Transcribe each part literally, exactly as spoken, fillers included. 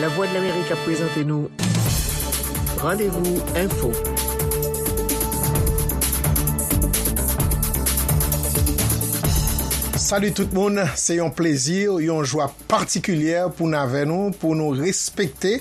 Lavwadlamerik ap prezante nou Randevou Enfo. Salut tout moun, se yon plezi, yon jwa patikilyè pou n avè nou, pou nou respekte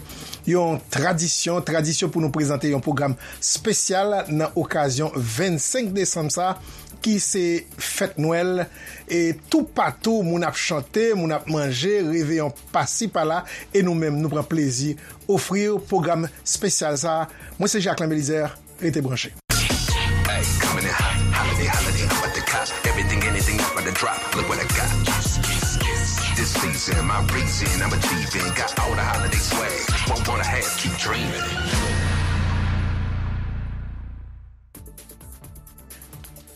yon tradisyon, tradisyon pou nou prezante yon pwogram espesyal nan okazyon vennsenk desanm sa, ki se fèt Nwèl. E toupatou, moun ap chante, moun ap manje, reveyon pasi pala, e nou menm, nou pran plezi ofri w pwogram espesyal sa. Mwen se Jacquelin Belizaire, rete branche. Hey, coming in hot, holiday, holiday, I'm about to cop everything, anything, I'm about to drop. Look what I got. This season, my reason, I'm achieving. Got all the holiday swag. Won't wanna have, keep dreaming.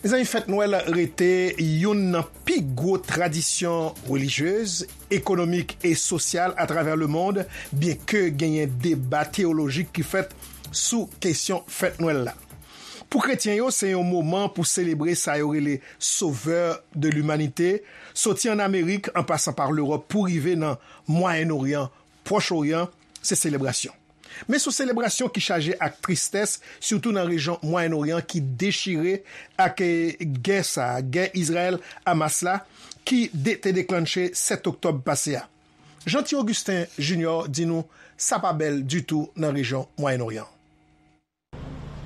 Mezanmi, fèt Nwèl rete youn nan pi gwo tradisyon relijyez, ekonomik e sosyal atravè lemonn, byenke genyen deba teyolojik ki fèt sou kesyon fèt Nwèl la. Pou kretyen yo, se yon moman pou selebre sa yo rele Sauveur de l'Humanité, soti ann Amerik, an pasan pa Lewòp pou rive nan Mwayen Oryan, Pwòch Oryan, se selebrasyon. Men se yon selebrasyon ki chaje ak tristès, sitou nan rejyon Mwayen Oryan ki dechire ak, eh, gè sa, gè Izrayèl-Hamas la, ki de-, te deklanche sèt oktòb pase a. Jeanty Augustin Junior di nou sa pa bèl ditou nan rejyon Mwayen Oryan.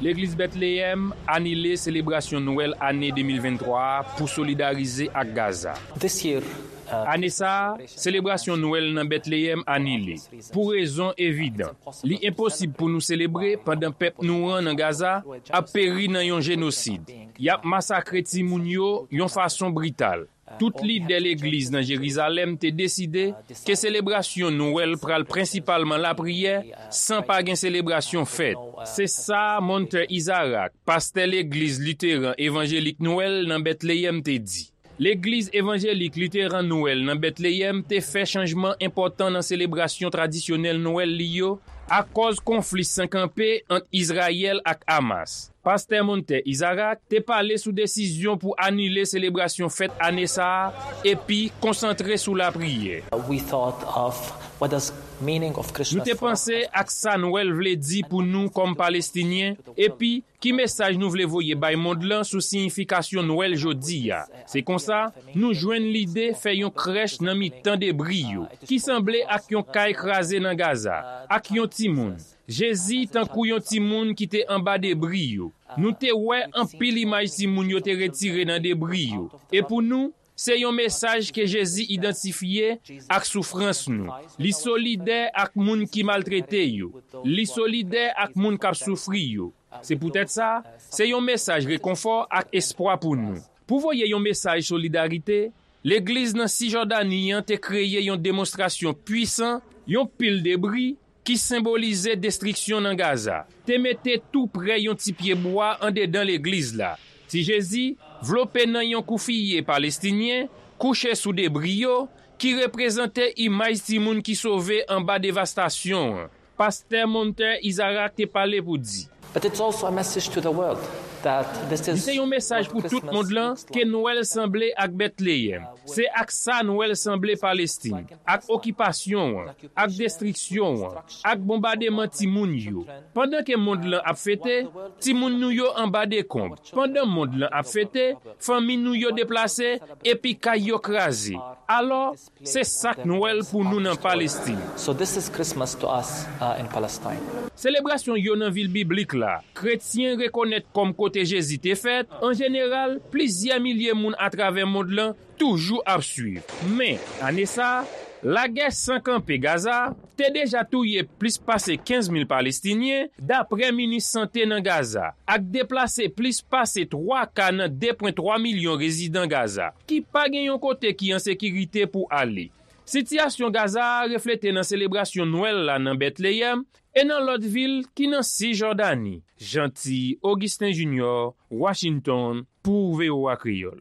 Legliz Bètleyèm anile selebrasyon Nwèl ane de mil venntwa a pou solidarize ak Gaza. This year, uh, Ane sa a, selebrasyon Nwèl nan Bètleyèm anile, pou rezon evidan. Li enposib pou nou selebre pandan pèp nou an nan Gaza ap peri nan yon jenosid. Y ap masakre timoun yo yon fason brital. Tout lidè legliz nan Jerizalèm te deside ke selebrasyon Nwèl pral prensipalman lapriyè, san pa gen selebrasyon fèt. Se sa Monte Isaac, pastè legliz literan evanjelik Nwèl nan Bètleyèm, te di. Legliz evanjelik literan Nwèl nan Bètleyèm te fè chanjman enpòtan nan selebrasyon tradisyonèl Nwèl li yo akòz konfli san kanpe ant Izrayèl ak Hamas. Pastè Monte Isaac te pale sou desizyon pou anile selebrasyon fèt ane sa a epi konsantre sou lapriyè. We thought of what does meaning of Christmas Nou te for panse us. Ak sa Nwèl vle di pou nou kòm Palestinyen, epi ki mesaj nou vle voye bay mond lan sou siyifikasyon Nwèl jodi a. Se konsa, nou jwenn lide fè yon krèch nan mitan debri yo, ki sanble ak yon kay kraze nan Gaza, ak yon timoun. Jezi tankou yon timoun ki te anba debri yo. Nou te wè anpil imaj timoun yo te retire nan debri yo. E pou nou, se yon mesaj ke Jezi idantifye ak soufrans nou. Li solidè ak moun ki maltrete yo. Li solidè ak moun k ap soufri yo. Se poutèt sa, se yon mesaj rekonfò ak espwa pou nou. Pou voye yon mesaj solidarite, legliz nan Sijòdani an te kreye yon demonstrasyon pwisan, yon pil debri, ki senbolize destriksyon nan Gaza, te mete tou prè yon ti pye bwa andedan legliz la. Ti Jezi, vlope nan yon koufiye palestinyen, kouche sou debri yo, ki reprezante imaj timoun ki sove anba devastasyon an. Pastè Monte Isaac te pale pou di, But it's also a message to the world that this Li is se yon mesaj what pou tout Christmas mond lan looks ke like. Nwèl sanble ak Betleyèm. Se ak sa Nwèl sanble Palestin, ak okipasyon an, ak destriksyon an, ak bonbademan timoun yo. Pandan ke mond lan ap fete, timoun nou yo anba dekonb. Pandan mond lan ap fete, fanmi nou yo deplase, epi kay yo kraze. Alò, se sa k Nwèl pou nou nan Palestin. So this is Christmas to us, uh, in Palestine. Selebrasyon yo nan vil biblik la, kretyen rekonèt kòm kote Jezi te fèt, an jeneral, plizyè milye moun atravè mond lan toujou ap swiv. Men, ane sa a, lagè san kanpe Gaza te deja touye plis pase kenz mil Palestinyen, dapre minis sante nan Gaza, ak deplase plis pase twa ka nan de pwen twa milyon rezidan Gaza, ki pa gen yon kote ki an sekirite pou ale. Sitiyasyon Gaza a reflete nan selebrasyon Nwèl la nan Betleyèm e nan lòt vil ki nan Sijòdani. Jeanty Augustin Junior, Washington, pou V O A Kreyòl.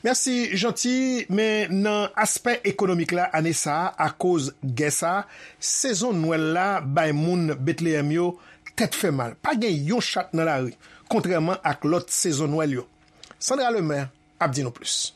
Mèsi, Jeanty. Men nan aspè ekonomik la, ane sa a, akoz gè sa a, sezon Nwèl la bay moun Betleyèm yo tèt fè mal. Pa gen yon chat nan lari, kontrèman ak lòt sezon Nwèl yo. Sandra Lemaire ap di nou plis.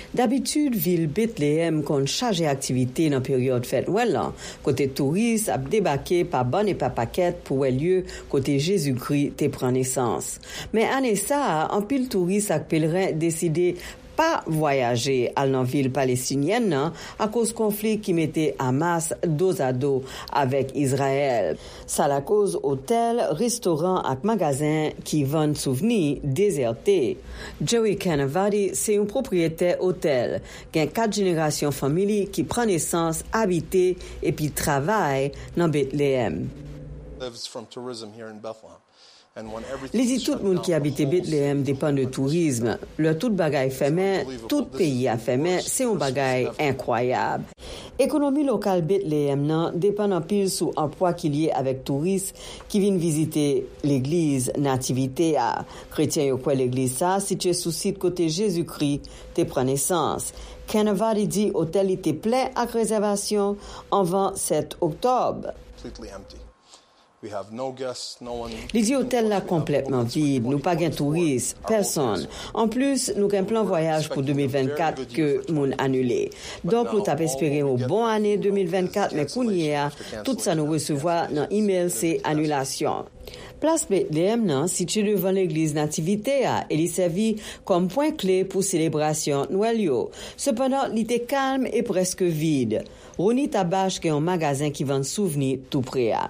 Dabitid, vil Betleyèm konn chaje aktivite nan peryòd fèt Nwèl lan, kote touris ap debake pa bann e pa pakèt pou wè lye kote Jezikri te pran nesans. Men ane sa a, anpil touris ak pelren deside pa vwayaje al nan vil palestinyèn nan akoz konfli ki mete Hamas dozado avèk Izrayèl. Sa lakoz otèl, restoran ak magazen ki vann souvni dezète. Joey Canavati se yon pwopriyetè otèl. Gen kat jenerasyon fanmi li ki pran nesans, abite, epi travay nan Betleyèm. Li di tout moun ki abite Betleyèm depann de tourizm. Lè tout bagay fèmen, tout peyi a fèmen, se yon bagay enkwayab. Ekonomi lokal Betleyèm nan depann anpil sou anplwa ki lye avèk touris ki vin vizite legliz Nativite a. Kretyen yo kwè legliz sa a sitiye sou sit kote Jezikri te pran nesans. Canavati di otèl li te plen ak rezèvasyon anvan sèt oktòb. Li di otèl la konplètman vid, nou pa gen touris, pèsonn. Anplis, nou gen plan vwayaj pou de mil vennkat ke moun anile. Donk, nou t ap espere yon bon ane de mil vennkat, men kounye a, tout sa nou resevwa nan imèl se anilasyon. Plas Betleyèm nan sitiye devan legliz Nativite a e li sèvi kòm pwen kle pou selebrasyon Nwèl yo. Sepandan, li te kalm e prèske vid. Ronnie Tabache gen yon magazen ki vann souvni tou pre a.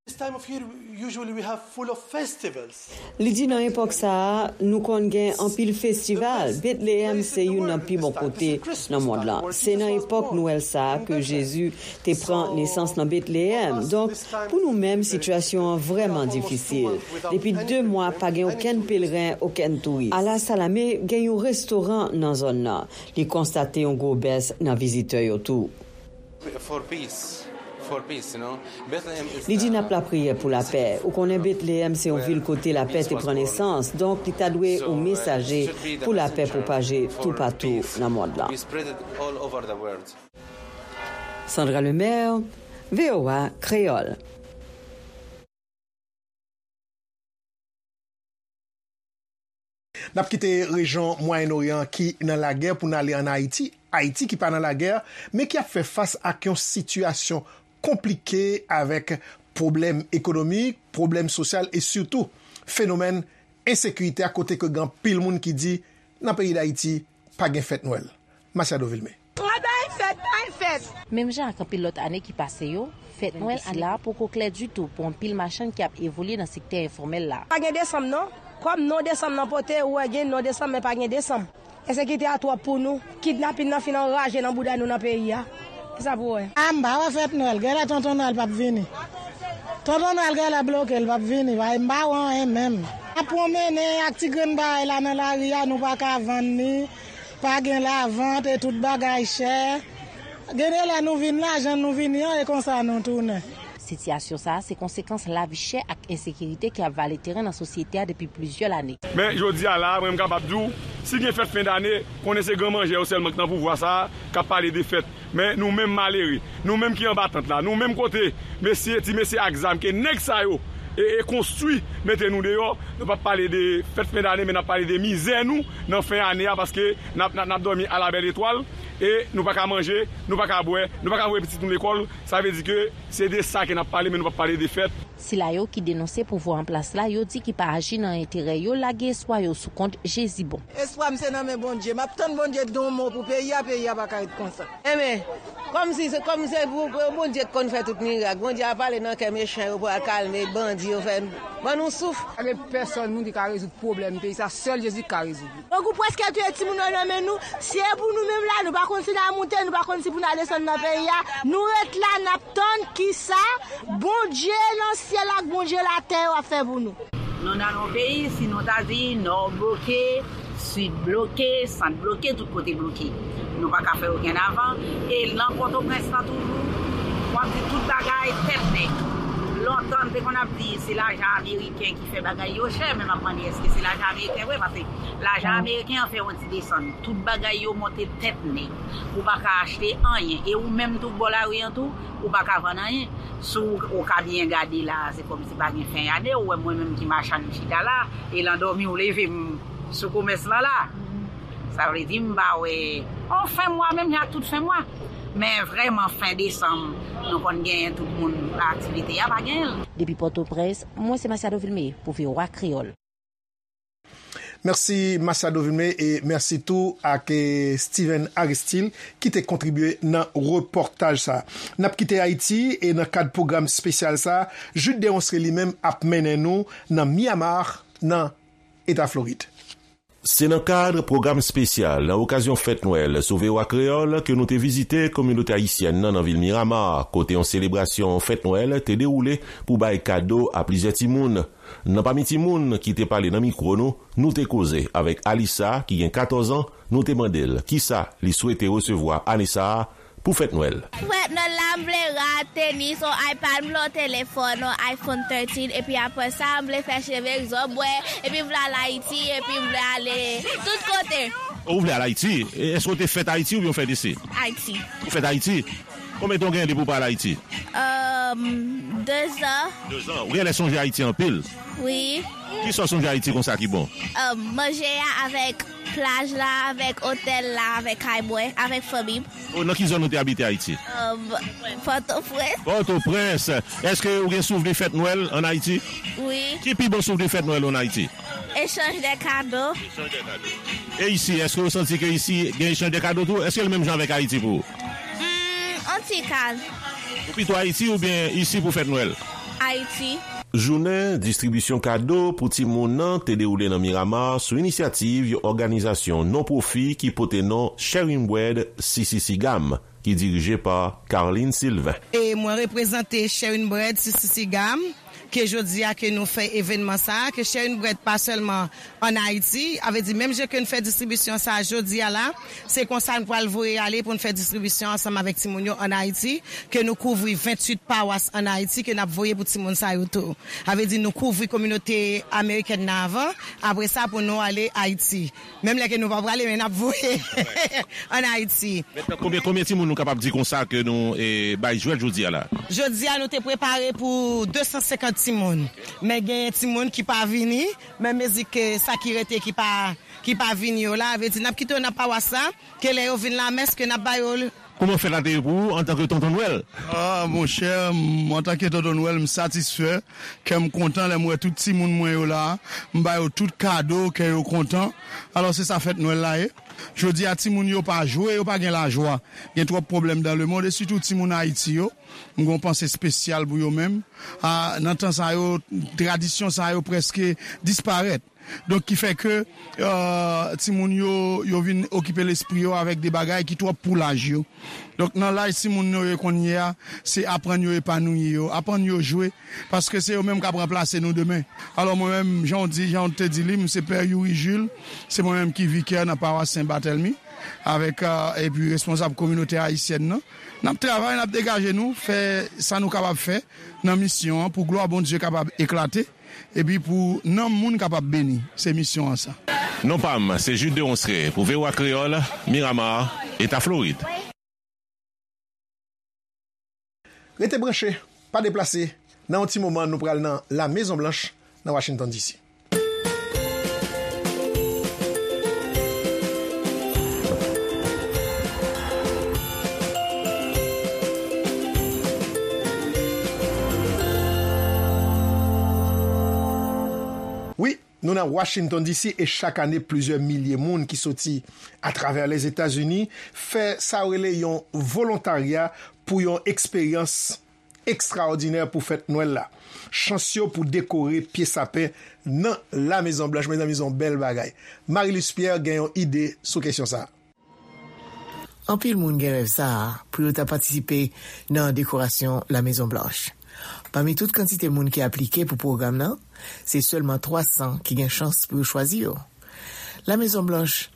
This time of year, usually we have full of festivals. Li di nan epòk sa a, nou konn gen anpil festival. Betleyèm se youn nan pi bon kote nan mond lan. Se nan epòk Nwèl sa a ke Jezi te pran nesans nan Betleyèm. Donk, pou nou menm, sitiyasyon an vrèman difisil. Depi de mwa, pa gen okenn pelren, okenn touris. Ala Salame gen yon restoran nan zòn nan. Li konstate yon gwo bès nan vizitè yo tou. For peace. For peace, you know. Bethlehem is Li di n ap lapriyè pou lapè. Ou konnen Betleyèm se yon vil kote lapè te pran nesans, donk li ta dwe yon mesaje pou lapè pwopaje toupatou nan mond lan. We spread it all over the world. Sandra Lemaire, V O A Kreyòl. N ap kite rejyon Mwayen Oryan ki nan lagè pou n ale ann Ayiti. Ayiti ki pa nan lagè, men ki ap fè fas ak yon sitiyasyon konplike avèk pwoblèm ekonomik, pwoblèm sosyal e sitou fenomèn ensekirite a, kote ke gen anpil moun ki di nan peyi Dayiti pa gen fèt Nwèl. Machado Vilmé. Travay fèt, bay fèt. Menm jan ak anpil lòt ane ki pase yo, fèt Nwèl sila poko klè ditou pou anpil machann ki ap evolye nan sektè enfòmèl la. Pa gen desanm non. Kòm non desanm nan pote, ou wè gen non desanm, men pa gen desanm. Ensekirite a twòp pou nou. Kidnapin nan fin anraje nan bouda nou nan peyi a. Kisa pou wè? A, m pa wè fèt Nwèl. Genlè Tonton Nwèl p ap vini. Tonton Nwèl genlè bloke, l p ap vini. Paske m pa wè anyen menm. N ap pwonmennen ak ti grenn bagay la nan lari a, nou pa ka vann li. Pa gen lavant e tout bagay chè. Gen de lè nou vin la, jan nou vini an, e konsa nou tounen. Sitiyasyon sa a se konsekans lavi chè ak ensekirite ki ap vale teren nan sosyete a depi plizyè lane. Men jodi a la, mwen m kapab di w, si gen fèt fen dane, konnen se gran manjè yo sèlman ki nan pouvwa sa a k ap pale de fèt. Men nou menm malere, nou menm ki anba tant la, nou menm kote mesye, ti mesye ak zam ke nèg sa yo e, e konstwi mete nou deyò, nou p ap pale de fèt fen dane, men n ap pale de mizè nou nan fen ane a, paske n ap, n ap, n ap dòmi a la bèl etwal, e nou pa ka manje, nou pa ka bwè, nou pa ka voye pitit nou lekòl, sa vle di ke se de sa ke n ap pale, men nou p ap pale de fèt. Sila yo ki denonse pouvwa an plas la, yo di ki pa aji nan enterè yo, lage espwa yo sou kont Jezi bon. Espwa m se nan men Bondye. M ap tann Bondye di yon mo pou peyi a, peyi a pa ka ret konsa. Enben, kòm si se, kòm se pou, pou Bondye k konn fè tout mirak. Bondye a pale nan kè mechan yo pou al kalme bandi yo, fè ban nou souf. Pa gen pèsòn moun ki ka rezoud pwoblèm peyi sa, sèl Jezi ki ka rezoud li. Grangou prèske touye timoun yo nan men nou. Si e pou nou menm la, nou pa konn si n a moute, nou pa konn si pou n a desann nan peyi a. Nou ret la, n ap tann kisa Bondye nan syèl ak Bondye latè yo ap fè pou nou. Nou nan yon peyi, si nou ta di nò bloke, sid bloke, sant bloke, tout kote bloke. Nou pa ka fè okenn avan. E nan Pòtoprens lan toujou, w ap di tout bagay tèt nèg. Lontan, n te konn ap di se lajan ameriken ki fè bagay yo chè, men m ap mande èske se lajan ameriken vre, paske lajan ameriken an fè yon ti desann. Tout bagay yo monte tèt nèg. Ou pa ka achte anyen. E ou menm tou, bò lari an tou, ou pa ka vann anyen. Si w, ou ka byen gade la, se kòmsi pa gen fen ane, ou wè mwen menm ki machann m chita la, e lan dòmi w leve m sou komès lan la. Sa vle di m pa wè yon fen mwa, menm jan ak tout fen mwa. Men vrèman, fen desanm, nou konn genyen tout moun aktivite a, pa genyen l. Depi Pòtoprens, mwen se Masiado Vilmé pou V O A Kreyòl. Mèsi Masiado Vilmé e mèsi tou ak eh, Steven Aristil ki te kontribye nan repòtaj sa. N ap kite Ayiti e nan kad pwogram espesyal sa, Jude Deronceray li menm ap mennen nou nan Miramar, nan Eta Florid. Se nan kad pwogram espesyal nan okazyon fèt Nwèl sou V O A Kreyòl ke nou te vizite kominote ayisyèn nan nan vil Miramar, kote yon selebrasyon fèt Nwèl te dewoule pou bay kado a plizyè timoun. Nan pami timoun ki te pale nan mikwo nou, nou te koze avèk Alisa, ki gen katòz an, nou te mande l kisa li swete resevwa ane sa a pou fèt Nwèl. Fèt Nwèl la, m vle rad, tenis, yon iPad, m vle yon telefòn, yon iPhone thirteen, epi apre sa, m vle fè cheve egzòt, bwè, epi m vle al Ayiti, epi m vle ale tout kote. Ou vle al Ayiti? E, èske w te fèt Ayiti oubyen w fèt isi? Ayiti. Ou fèt Ayiti? Konbyen tan w genyen depi w pa al Ayiti? Um, dezan. Dezan. Ou genlè sonje Ayiti anpil? Wi. Kisa w sonje Ayiti konsa ki bon? Um, manje a avèk plaj la, avèk otèl la, avèk kay mwen, avèk fanmi m. O, nan ki zòn ou te abite Ayiti? Um, Pòtoprens. Pòtoprens. Èske ou gen souvni fèt Nwèl ann Ayiti? Wi. Ki pi bon souvni fèt Nwèl ou ann Ayiti? Echanj de kado. E isi, èske ou santi ke isi gen echanj de kado tou? Èske l menm jan avèk Ayiti pou ou? Hmm, yon ti kal. Ou pito Ayiti oubyen isi pou fèt Nwèl? Ayiti. Jounen distribisyon kado pou timoun nan te dewoule nan Miramar sou inisyativ yon òganizasyon non pwofi ki pote non Sharing Bread C C C GAM, ki dirije pa Carline Sylvain. E mwen reprezante Sharing Bread C C C GAM, ke jodi a ke nou fè evènman sa, ke Sharing Bread pa sèlman ann Ayiti, a vle di menm jan ke n fè distribisyon sa jodi a la, se konsa n pral voye ale pou n fè distribisyon ansanm avèk timoun yo ann Ayiti, ke nou kouvri venntuit pawas ann Ayiti ke n ap voye pou timoun sa yo tou. A vle di nou kouvri kominote amerikèn nan avan, apre sa pou nou ale Ayiti. Menm lè ke nou pa prale, men n ap voye ann Ayiti. Mentnan, konbyen, konbyen timoun nou kapab di konsa ke nou eh, bay jwèt jodi a la? Jodi a, nou te prepare pou de san senkant timoun. Men genyen timoun ki pa vini, men mezi ke sa ki rete ki pa, ki pa vini yo la, vle di n ap kite yo nan pawas la, ke lè yo vin lamès, ke n ap ba yo l. Kòman fèt la te ye pou ou antanke Tonton Nwèl? Ah, monchè, m, antanke Tonton Nwèl, m satisfè, kè m kontan lè m wè tout timoun mwen yo la, m ba yo tout kado, kè yo kontan. Alò, se sa fèt Nwèl la ye. Jodi a, timoun yo pa jwe, yo pa gen lajwa. Gen twòp pwoblèm dans le monde, e sitou timoun Ayiti yo. M gen yon panse espesyal pou yo menm. A, nan tan sa yo, tradisyon sa yo prèske disparèt. Donk, ki fè ke, euh, timoun yo, yo vin okipe lespri yo avèk de bagay ki twòp pou laj yo. Donk, nan laj timoun yo ye kounye a, se aprann yo epanouyi yo, aprann yo jwe, paske se yo menm k ap ranplase nou demen. Alò, mwen menm, jan w di, jan w te di li, m se Pè Youri Jules, se mwen menm ki vikè nan pawas Sen Batèlmi, avèk, euh, epi responsab kominote ayisyèn nan. N ap travay, n ap degaje nou, fè sa nou kapab fè nan misyon an, pou glwa Bondye kapab eklate, epi pou nanm moun kapab beni. Se misyon an sa. Non pa m, se Jude Deronceray pou V O A Kreyòl, Miramar, Eta Florid. Rete branche, pa deplase. Nan yon ti moman, nou pral nan La Mezon Blanch, nan Washington D C. Wi, nou nan Washington D C e chak ane, plizyè milye moun ki soti atravè Lèzetazini fè sa yo rele yon volontarya pou yon eksperyans ekstraòdinè pou fèt Nwèl la. Chans yo pou dekore pye sapen nan La Mezon Blanch, mezanmi, se yon bèl bagay. Marie-Luce Pierre gen yon ide sou kesyon sa a. Anpil moun gen rèv sa a pou yo ta patisipe nan dekorasyon La Mezon Blanch. Pami tout kantite moun ki aplike pou pwogram nan, se sèlman twa san ki gen chans pou yo chwazi yo. La Mezon Blanch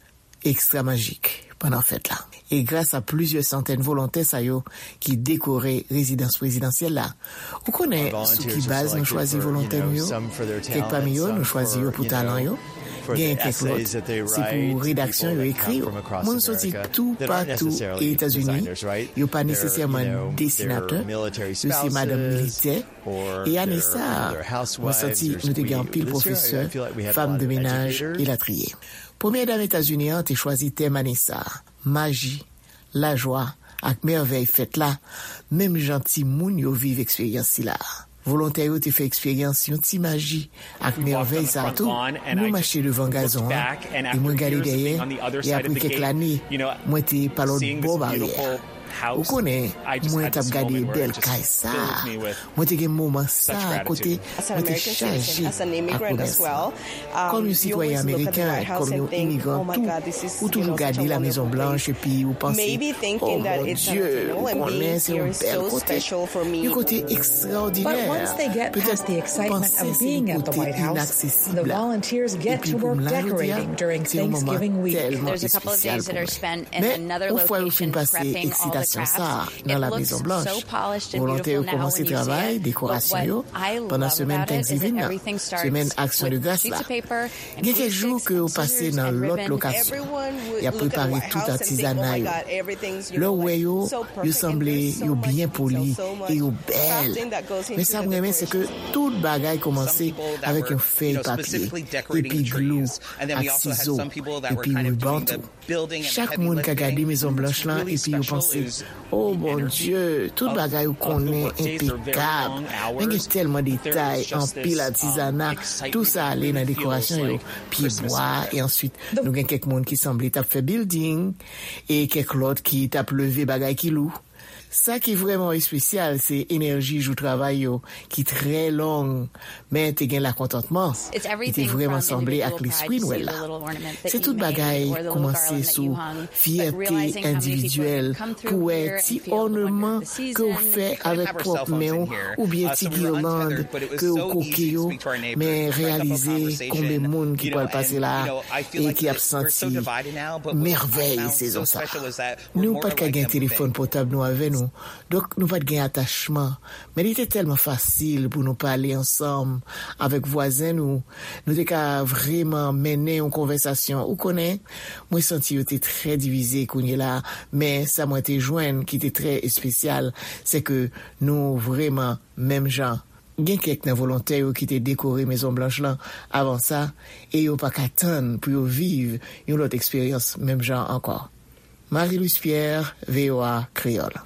ekstra majik pandan fèt la. E gras a plizyè santèn volontè sa yo ki dekore rezidans prezidansyèl la. Ou konnen sou ki baz nou chwazi volontè nou yo? Kèk pami yo, nou chwazi yo pou talan yo. Gen kèk lòt, se pou redaksyon yo ekri yo. Moun soti toupatou Etazini, yo pa nesesèman desinatè, yo se madanm militè. E ane sa a, mwen santi nou te gen anpil pwofesè, fanm de menaj, elatriye. Premyè dam Etazini an te chwazi tèm ane sa a, maji, lajwa, ak mèvèy fèt la, menm jan timoun yo viv eksperyans sila a. Volontè yo te fè eksperyans yon ti maji ak mèvèy sa a tou. Nou mache devan gazon an, e mwen gade dèyè, e apre kèk lane, mwen te pa lòt bò baryè a. Ou konnen, mwen t ap gade bèl kay sa a. Mwen te gen moman sa a kote mwen te chaje ak remèsiman. Kòm yon sitwayen ameriken, kòm yon imigran tou, ou toujou gade La Mezon Blanch epi ou panse, "Oh, mon Dye, ou konnen se yon bèl kote, yon kote ekstraòdinè." Petèt ou panse se yon kote inaksesib la. Epi pou m la jodi a, se yon moman tèlman espesyal pou mwen. Men, yon fwa yo fin pase eksitasyon sa a nan La Mezon Blanch, volontè yo kòmanse travay dekorasyon yo pandan semèn Thanksgiving nan, semèn Aksyon de Gras la. Gen kèk jou ke yo pase nan lòt lokasyon. Y ap prepare tout atizana yo. Lè w wè yo, yo sanble yo byen poli e yo bèl. Men sa m renmen, se ke tout bagay kòmanse avèk yon fèy papye, epi glou, ak sizo, epi riban tou. Chak moun ka gade Mezon Blanch lan epi yo panse, "O Bondye, tout bagay ou konnen enpekab." Men gen tèlman detay, anpil atizana, tou sa ale nan dekorasyon yo, pyebwa, e answit nou gen kèk moun ki sanble t ap fè bilding, e kèk lòt ki t ap leve bagay ki lou. Sa ki vrèman espesyal, se enèji jou travay yo, ki trè long, men te gen lakontantman. Li te vrèman sanble ak lespri Nwèl la. Se tout bagay kòmanse sou fyète endividyèl pou wè ti ònman ke w fè avèk pwòp men w, oubyen ti girland ke w koke yo, men reyalize konbyen moun ki pral pase la e ki ap santi mèvèy sezon sa. Nou pa t ka gen telefòn pòtab nou avè nou, donk nou pa t gen atachman. Men li te tèlman fasil pou nou pale ansanm avèk vwazen nou. Nou te ka vrèman mennen yon konvèsasyon. Ou konnen, mwen santi yo te trè divize kounye la a, men sa mwen te jwenn ki te trè espesyal, se ke nou vrèman menm jan. Gen kèk nan volontè yo ki te dekore Mezon Blanch lan avan sa, e yo pa ka tann pou yo viv yon lòt eksperyans menm jan ankò. Marie Louise Pierre, V O A Kreyòl.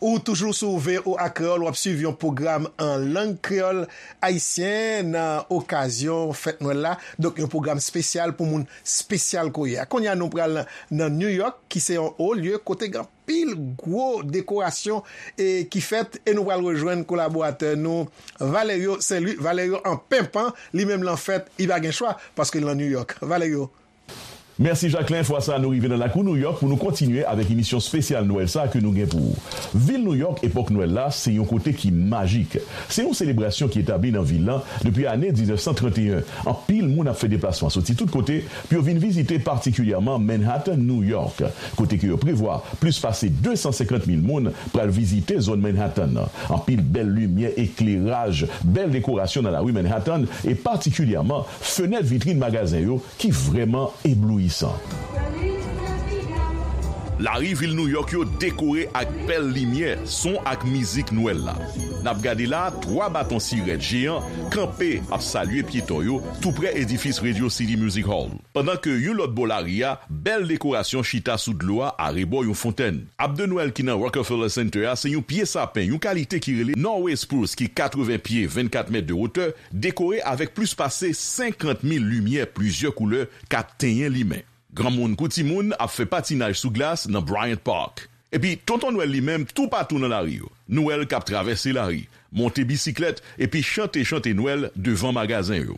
Ou toujou sou V O A Kreyòl, w ap swiv yon pwogram an lang kreyòl ayisyen nan okazyon fèt Nwèl la. Donk, yon pwogram espesyal pou moun espesyal ke w ye a. Kounye a, nou pral nan New York, ki se yon wo lye kote gen anpil gwo dekorasyon e ki fèt, e nou pral rejwenn kolaboratè nou, Valerio Saint-Louis. Valerio an penpan, li menm lan fèt, li pa gen chwa, paske l nan New York. Valerio. Mèsi, Jacquelin. Fwa sa a, nou rive nan lakou Nouyòk pou nou kontinye avèk emisyon espesyal Nwèl sa a ke nou gen pou ou. Vil Nouyòk, epòk Nwèl la, se yon kote ki majik. Se yon selebrasyon ki etabli nan vil lan depi ane diznèf san trannteyen. Anpil moun ap fè deplasman soti tout kote pou yo vin vizite, patikilyèman Manhattan, Nouyòk, kote ke yo prevwa plis pase de san senkant mil moun pral vizite zòn Manhattan nan. Anpil bèl limyè, ekleraj, bèl dekorasyon nan lari Manhattan, e patikilyèman fenèt vitrin magazen yo ki vrèman eblouyisan. Lari vil Nouyòk yo dekore ak bèl limyè, son ak mizik Nwèl la. N ap gade la, twa baton sirèt jeyan kanpe ap salye pyeton yo toupre edifis Radio City Music Hall. Pandan ke yon lòt bò lari a, bèl dekorasyon chita sou dlo a arebò yon fontèn. Ab de Nwèl ki nan Rockefeller Center a se yon pye sapen, yon kalite ki rele Norway Spruce ki katreven pye, vennkat mèt de wotè, dekore avèk plis pase senkant mil limyè plizyè koulè k ap tenyen limen. Granmoun kou timoun ap fè patinaj sou glas nan Bryant Park. Epi, Tonton Nwèl li menm toupatou nan lari yo. Nwèl k ap travèse lari, monte bisiklèt, epi chante chante Nwèl devan magazen yo.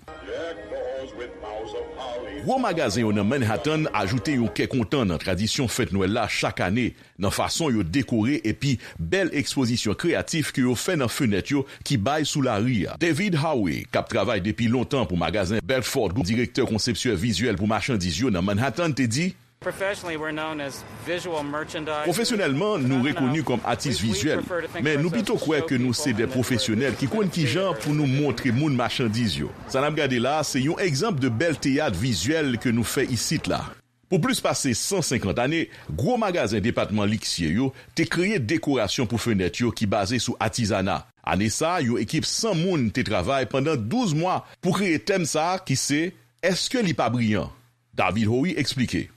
Gwo magazen yo nan Manhattan ajoute yon kè kontan nan tradisyon fèt Nwèl la chak ane, nan fason yo dekore epi bèl ekspozisyon kreyatif ke yo fè nan fenèt yo ki bay sou lari a. David Howie, k ap travay depi lontan pou magazen Bergdorf Goodman, direktè konsepsyè vizyèl pou machandiz yo nan Manhattan, te di, Pwofesyonèlman, nou rekoni kòm atis vizyèl, men nou pito kwè ke nou se de pwofesyonèl ki konn kijan pou nou montre moun machandiz yo. Sa n ap gade la a se yon egzanp de bèl teyat vizyèl ke nou fè isit la. Pou plis pase san senkant ane, gwo magazen depatman liksye yo te kreye dekorasyon pou fenèt yo ki baze sou atizana. Ane sa a, yon ekip san moun te travay pandan douz mwa pou kreye tèm sa a ki se, Èske li pa briyan? David Howie eksplike.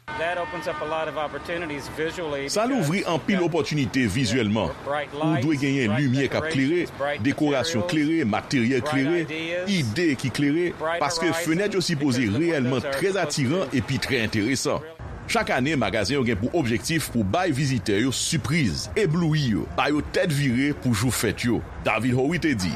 Sa louvri anpil opòtinite vizyèlman. Ou dwe genyen limyè k ap klere, dekorasyon klere, materyèl klere, ide ki klere, paske fenèt yo sipoze reyèlman trè atiran epi trè enteresan. Chak ane, magazen yo gen pou objektif pou bay vizitè yo sipriz, eblouyi yo, ba yo tèt vire pou jou fèt yo. David Howie te di,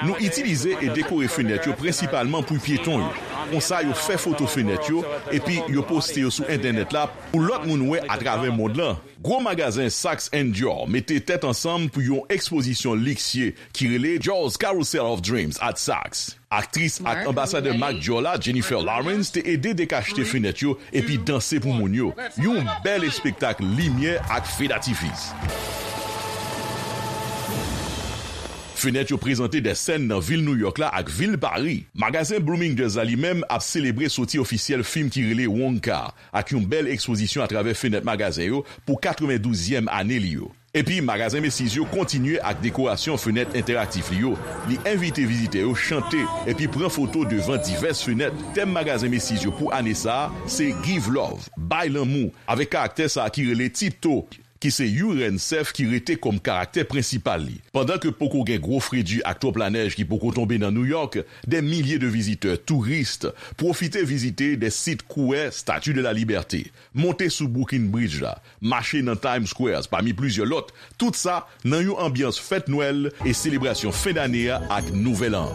Nou itilize e dekore fenèt yo prensipalman pou pyeton yo. Konsa, yo fè foto fenèt yo, epi yo poste yo sou entènèt la pou lòt moun wè atravè mond lan. Gwo magazen Saks and Dior mete tèt ansanm pou yon ekspozisyon liksye ki rele Dior's Carousel of Dreams at Saks. Aktris ak anbasadè mak Dior la, Jennifer Lawrence, te ede dekachte fenèt yo epi danse pou moun yo. Yon bèl espektak limyè ak fedatifis. Fenèt yo prezante de sèn nan vil Nouyòk la ak vil Pari. Magazen Bloomingdale's la li menm ap selebre soti ofisyèl fim ki rele Wonka, ak yon bèl ekspozisyon atravè fenèt magazen yo pou katrevenndouzyèm ane li yo. Epi, magazen Macy's yo kontinye ak dekorasyon fenèt entèraktif li yo. Li envite vizitè yo chante epi pran foto devan divès fenèt. Tèm magazen Macy's yo pou ane sa a se Give Love, Bay Lanmou, avèk karaktè sa a ki rele Tito, ki se yon rèn sèf ki rete kòm karaktè prensipal li. Pandan ke poko gen gwo fredi ak twòp lanèj ki poko tonbe nan Nouyòk, dè milye de vizitè, touris, pwofite vizite dè sit kouwè Statue de la Liberté, monte sou Brooklyn Bridge la, mache nan Times Square, pami plizyè lòt, tout sa nan yon anbyans fèt Nwèl e selebrasyon fen dane a ak Nouvèl An.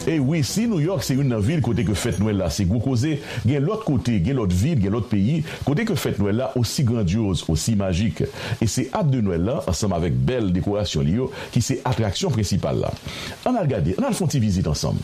E wi, si Nouyòk se youn nan vil kote ke fèt Nwèl la se gwo koze, gen lòt kote, gen lòt vil, gen lòt peyi, kote ke fèt Nwèl la osi grandyoz, osi majik. E se Ab de Nwèl la, ansanm avèk bèl dekorasyon li yo, ki se atraksyon prensipal la. Ann al gade, ann al fè yon ti vizit ansanm.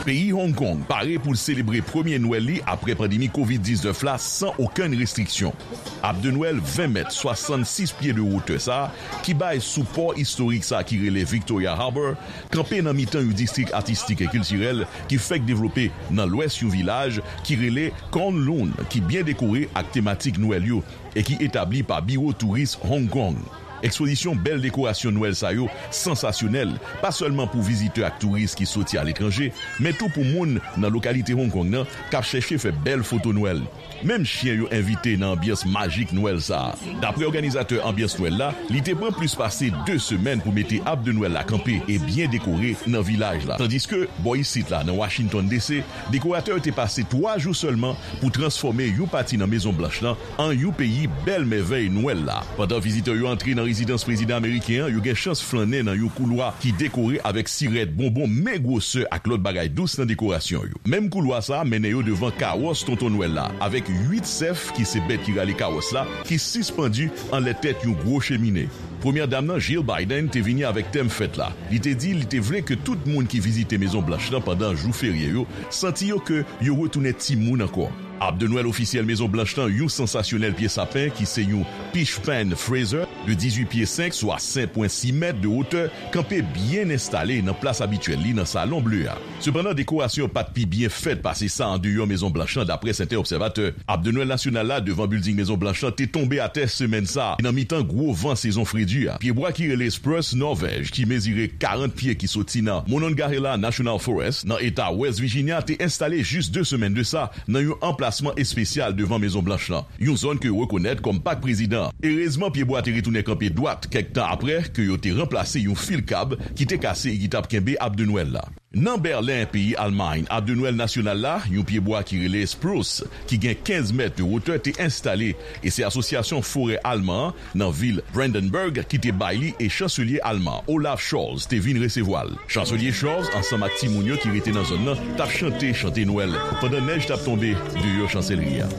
Peyi Hong Kong pare pou l selebre premye Nwèl li apre pandemi kovid diznèf la san okenn restriksyon. Ab de Nwèl ven mèt, swasannsis pye de wotè sa a, ki bay sou pò istorik sa a ki rele Victoria Harbour, kanpe nan mitan yon distrik atistik e kiltirèl ki fèk devlope nan lwès yon vilaj ki rele Kowloon, ki byen dekore ak tematik Nwèl yo e ki etabli pa Biwo Touris Hong Kong. Ekspozisyon bèl dekorasyon Nwèl sa yo sansasyonèl, pa sèlman pou vizitè ak touris ki soti aletranje, men tou pou moun nan lokalite Hong Kong nan k ap chèche fè bèl foto Nwèl. Menm chen yo envite nan anbyans majik Nwèl sa a. Daprè òganizatè anbyans Nwèl la, li te pran plis pase de semèn pou mete Ab de Nwèl la kanpe e byen dekore nan vilaj la. Tandiske, bò isit la, nan Washington D C, dekoratè yo te pase twa jou sèlman pou transfòme yon pati nan Mezon Blanch lan an yon peyi bèl mèvèy Nwèl la. Pandan vizitè yo antre nan rezidans prezidan ameriken an, yo gen chans flannen nan yon koulwa ki dekore avèk sirèt, bonbon, men gwosè ak lòt bagay dous nan dekorasyon yo. Menm koulwa sa a mennen yo devan kawòs Tonton Nwèl la, avèk uit sèf, ki se bèt ki rale kawòs la, ki sispandi anlè tèt yon gwo chemine. Premyè dam nan, Jill Biden, te vini avèk tèm fèt la. Li te di li te vle ke tout moun ki vizite Mezon Blanch lan pandan jou ferye yo santi yo ke yo retounen timoun ankò. Ab de Nwèl ofisyèl Mezon Blanch lan, yon sansasyonèl pye sapen ki se yon Peach Pan Fraser de dizuit pye senk, swa senk pwen sis mèt de wotè, kanpe byen enstale nan plas abityèl li nan Salon Ble a. Sepandan, dekorasyon yo pa t pi byen fèt pase sa andeyò Mezon Blanch lan, daprè sèten obsèvatè. Ab de Nwèl nasyonal la devan bilding Mezon Blanch lan te tonbe atè semèn sa a, nan mitan gwo van sezon fredi a. Pyebwa ki rele Spruce Norvèj, ki mezire karant pye, ki soti nan Monongahela National Forest, nan eta West Virginia, te enstale jis de semèn de sa nan yon anplasman espesyal devan Mezon Blanch lan, yon zòn ke yo rekonèt kòm Pak Prezidan an. Erezman, pyebwa te retounen Tounen kanpe dwat kèk tan apre ke yo te ranplase yon fil kab ki te kase e ki t ap kenbe ab de Nwèl la. Nan Bèlen, peyi Almay, ab de Nwèl nasyonal la, yon pyebwa ki rele spruce, ki gen kenz mèt de wotè, te enstale, e se Asosyasyon Forè Alman an nan vil Brandenburg ki te bay li, e chanselye alman Olaf Scholz te vin resevwa l. Chanselye Scholz, ansanm ak timoun yo ki rete nan zòn nan, t ap chante chante Nwèl pandan nèj t ap tonbe deyò chanselri a.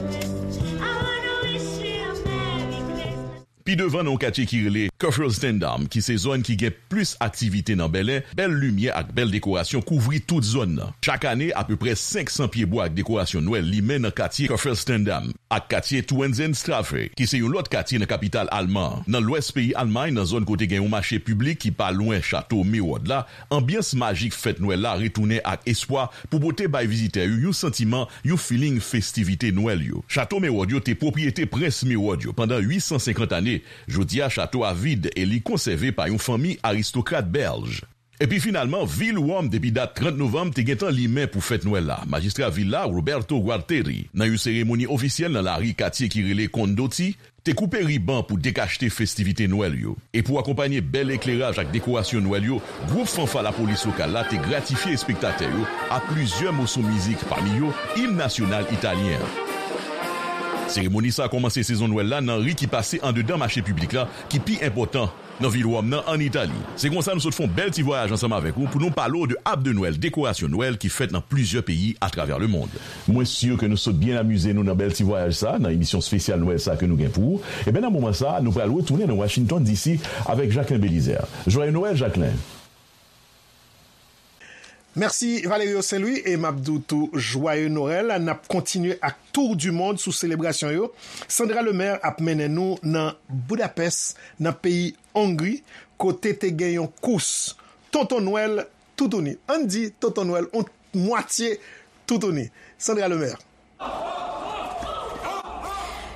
Pi devan, nan yon katye ki rele Kufferstendam, ki se zòn ki gen plis aktivite nan Bèlen, bèl limyè ak bèl dekorasyon kouvri tout zòn nan. Chak ane, apeprè senk san pyebwa ak dekorasyon Nwèl limen nan katye Kufferstendam ak katye Tauentzienstraße, ki se yon lòt katye nan kapital alman an. Nan lwès peyi Almay, nan zòn kote gen yon mache piblik ki pa lwen chato Mewòd la, anbyans majik fèt Nwèl la retounen ak espwa pou pote bay vizitè yo yon santiman, yon feeling festivite Nwèl yo. Chato Mewòd yo te pwopriyete prens Mewòd yo pandan uit san senkant ane. Jodi a, chato a vid e li konsève pa yon fanmi aristokrat bèlj. Epi finalman, vil Wòm depi dat trant novanm te gentan limen pou fèt Nwèl la. Majistra vil la, Roberto Gualtieri, nan yon seremoni ofisyèl nan lari katye ki rele Condotti, te koupe riban pou dekachte festivite Nwèl yo. E pou akonpanye bèl ekleraj ak dekorasyon Nwèl yo, gwoup fanfa lapolis lokal la te gratifye espektatè yo ak plizyè moso mizik, pami yo im nasyonal italyen an. Seremoni sa a kòmanse sezon Nwèl la nan ri ki pase andedan mache piblik la, ki pi enpòtan nan vil Wòm nan, ann Itali. Se konsa nou sot fè yon bèl ti vwayaj ansanm avèk ou pou nou pale w de ab de Nwèl, dekorasyon Nwèl ki fèt nan plizyè peyi atravè lemonn. Mwen si ke nou sot byen amize nou nan bèl ti vwayaj sa, nan emisyon espesyal Nwèl sa ke nou gen pou ou. Ebyen, nan moman sa, nou pral retounen nan Washington D C avèk Jacquelin Belizaire. Joyeux Noël, Jacquelin! Mèsi, Valerio Saint-Louis, e m ap di w tou, Joyeux Noël. N ap kontinye ak Tour du Monde sou selebrasyon yo. Sandra Lemaire ap mennen nou nan Boudapès, nan peyi Ongri, kote te gen yon kous Tonton Nwèl toutouni. Ann di Tonton Nwèl on mwatye toutouni. Sandra Lemaire.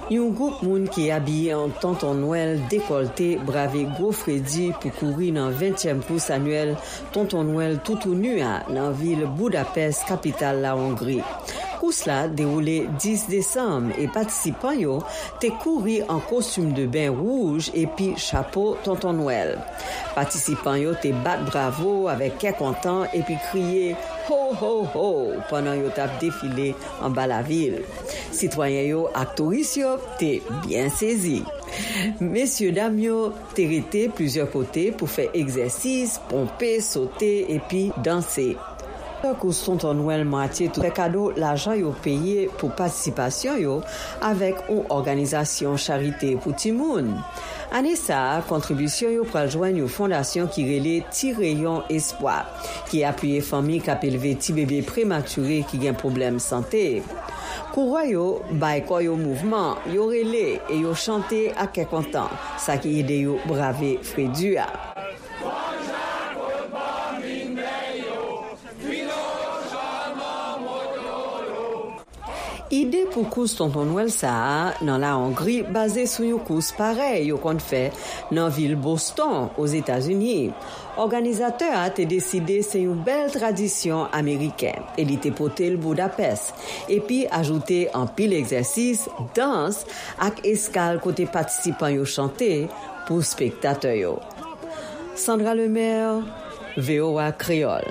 Yon gwoup moun ki abiye an Tonton Nwèl dekòlte brave gwo fredi pou kouri nan ventyèm kous anyèl Tonton Nwèl toutouni a nan vil Boudapès, kapital la Ongri. Kous la dewoule dis desanm e patisipan yo te kouri an kostim de ben wouj epi chapo Tonton Nwèl. Patisipan yo te bat bravo avèk kè kontan epi kriye ho, ho, ho pandan yo t ap defile anba lavil. Sitwayen yo ak touris yo te byen sezi. Mesyedam yo te rete plizyè kote pou fè egzèsis, ponpe, sote epi danse. Kous Tonton Nwèl mwatye tou fè kado lajan yo peye pou patisipasyon yo avèk yon òganizasyon charite pou timoun. Ane sa a, kontribisyon yo pral jwenn yon fondasyon ki rele Ti Reyon Espwa, ki apiye fanmi k ap elve ti bebe prematire ki gen pwoblèm sante. Kourè yo bay kò yo mouvman, yo rele e yo chante ak kè kontan, sa ki ede yo brave fredi a. Ide pou kous Tonton Nwèl sa a nan la Ongri baze sou yon kous parèy yo konn fè nan vil Boston, Ozetazini. Òganizatè a te deside se yon bèl tradisyon ameriken e li te pote l Boudapès, epi ajoute anpil egzèsis, dans ak eskal kote patisipan yo chante pou espektatè yo. Sandra Lemaire, V O A Kreyòl.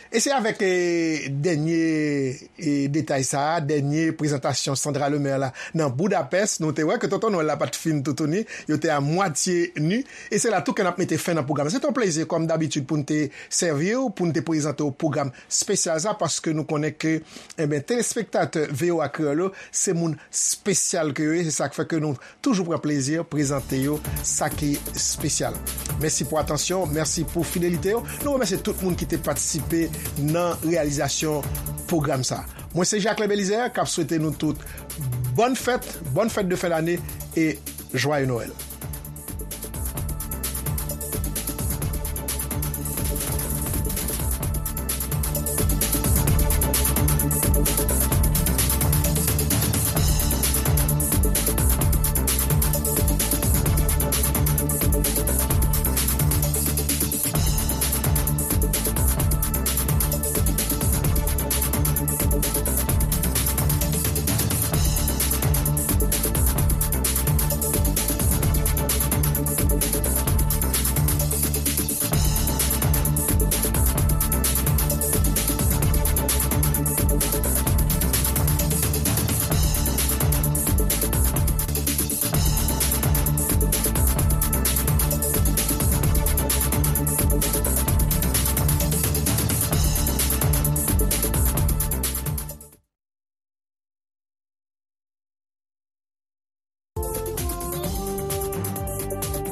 E se avèk, eh, dènye, eh, detay sa a, dènye prezantasyon Sandra Lemaire la nan Boudapès, nou te wè ke Tonton Nwèl la pa t fin toutouni, yo te a mwatye ni. E se la tou ke n ap mete fen nan pwogram. Se te yon plezi, kòm dabitid, pou n te sèvi w, pou n te prezante w pwogram espesyal sa, paske nou konnen ke, enben, telespektatè V O A Kreyòl yo, se moun espesyal ke yo ye. Se sa k fè ke nou toujou pran plezi prezante yo sa ki espesyal. Mèsi pou atansyon, mèsi pou fidelite yo. Nou remèsye tout moun ki te patisipe nan reyalizasyon pwogram sa. Mwen se Jacquelin Belizaire k ap swete nou tout bòn fèt, bòn fèt de fen dane e jwaye Nwèl.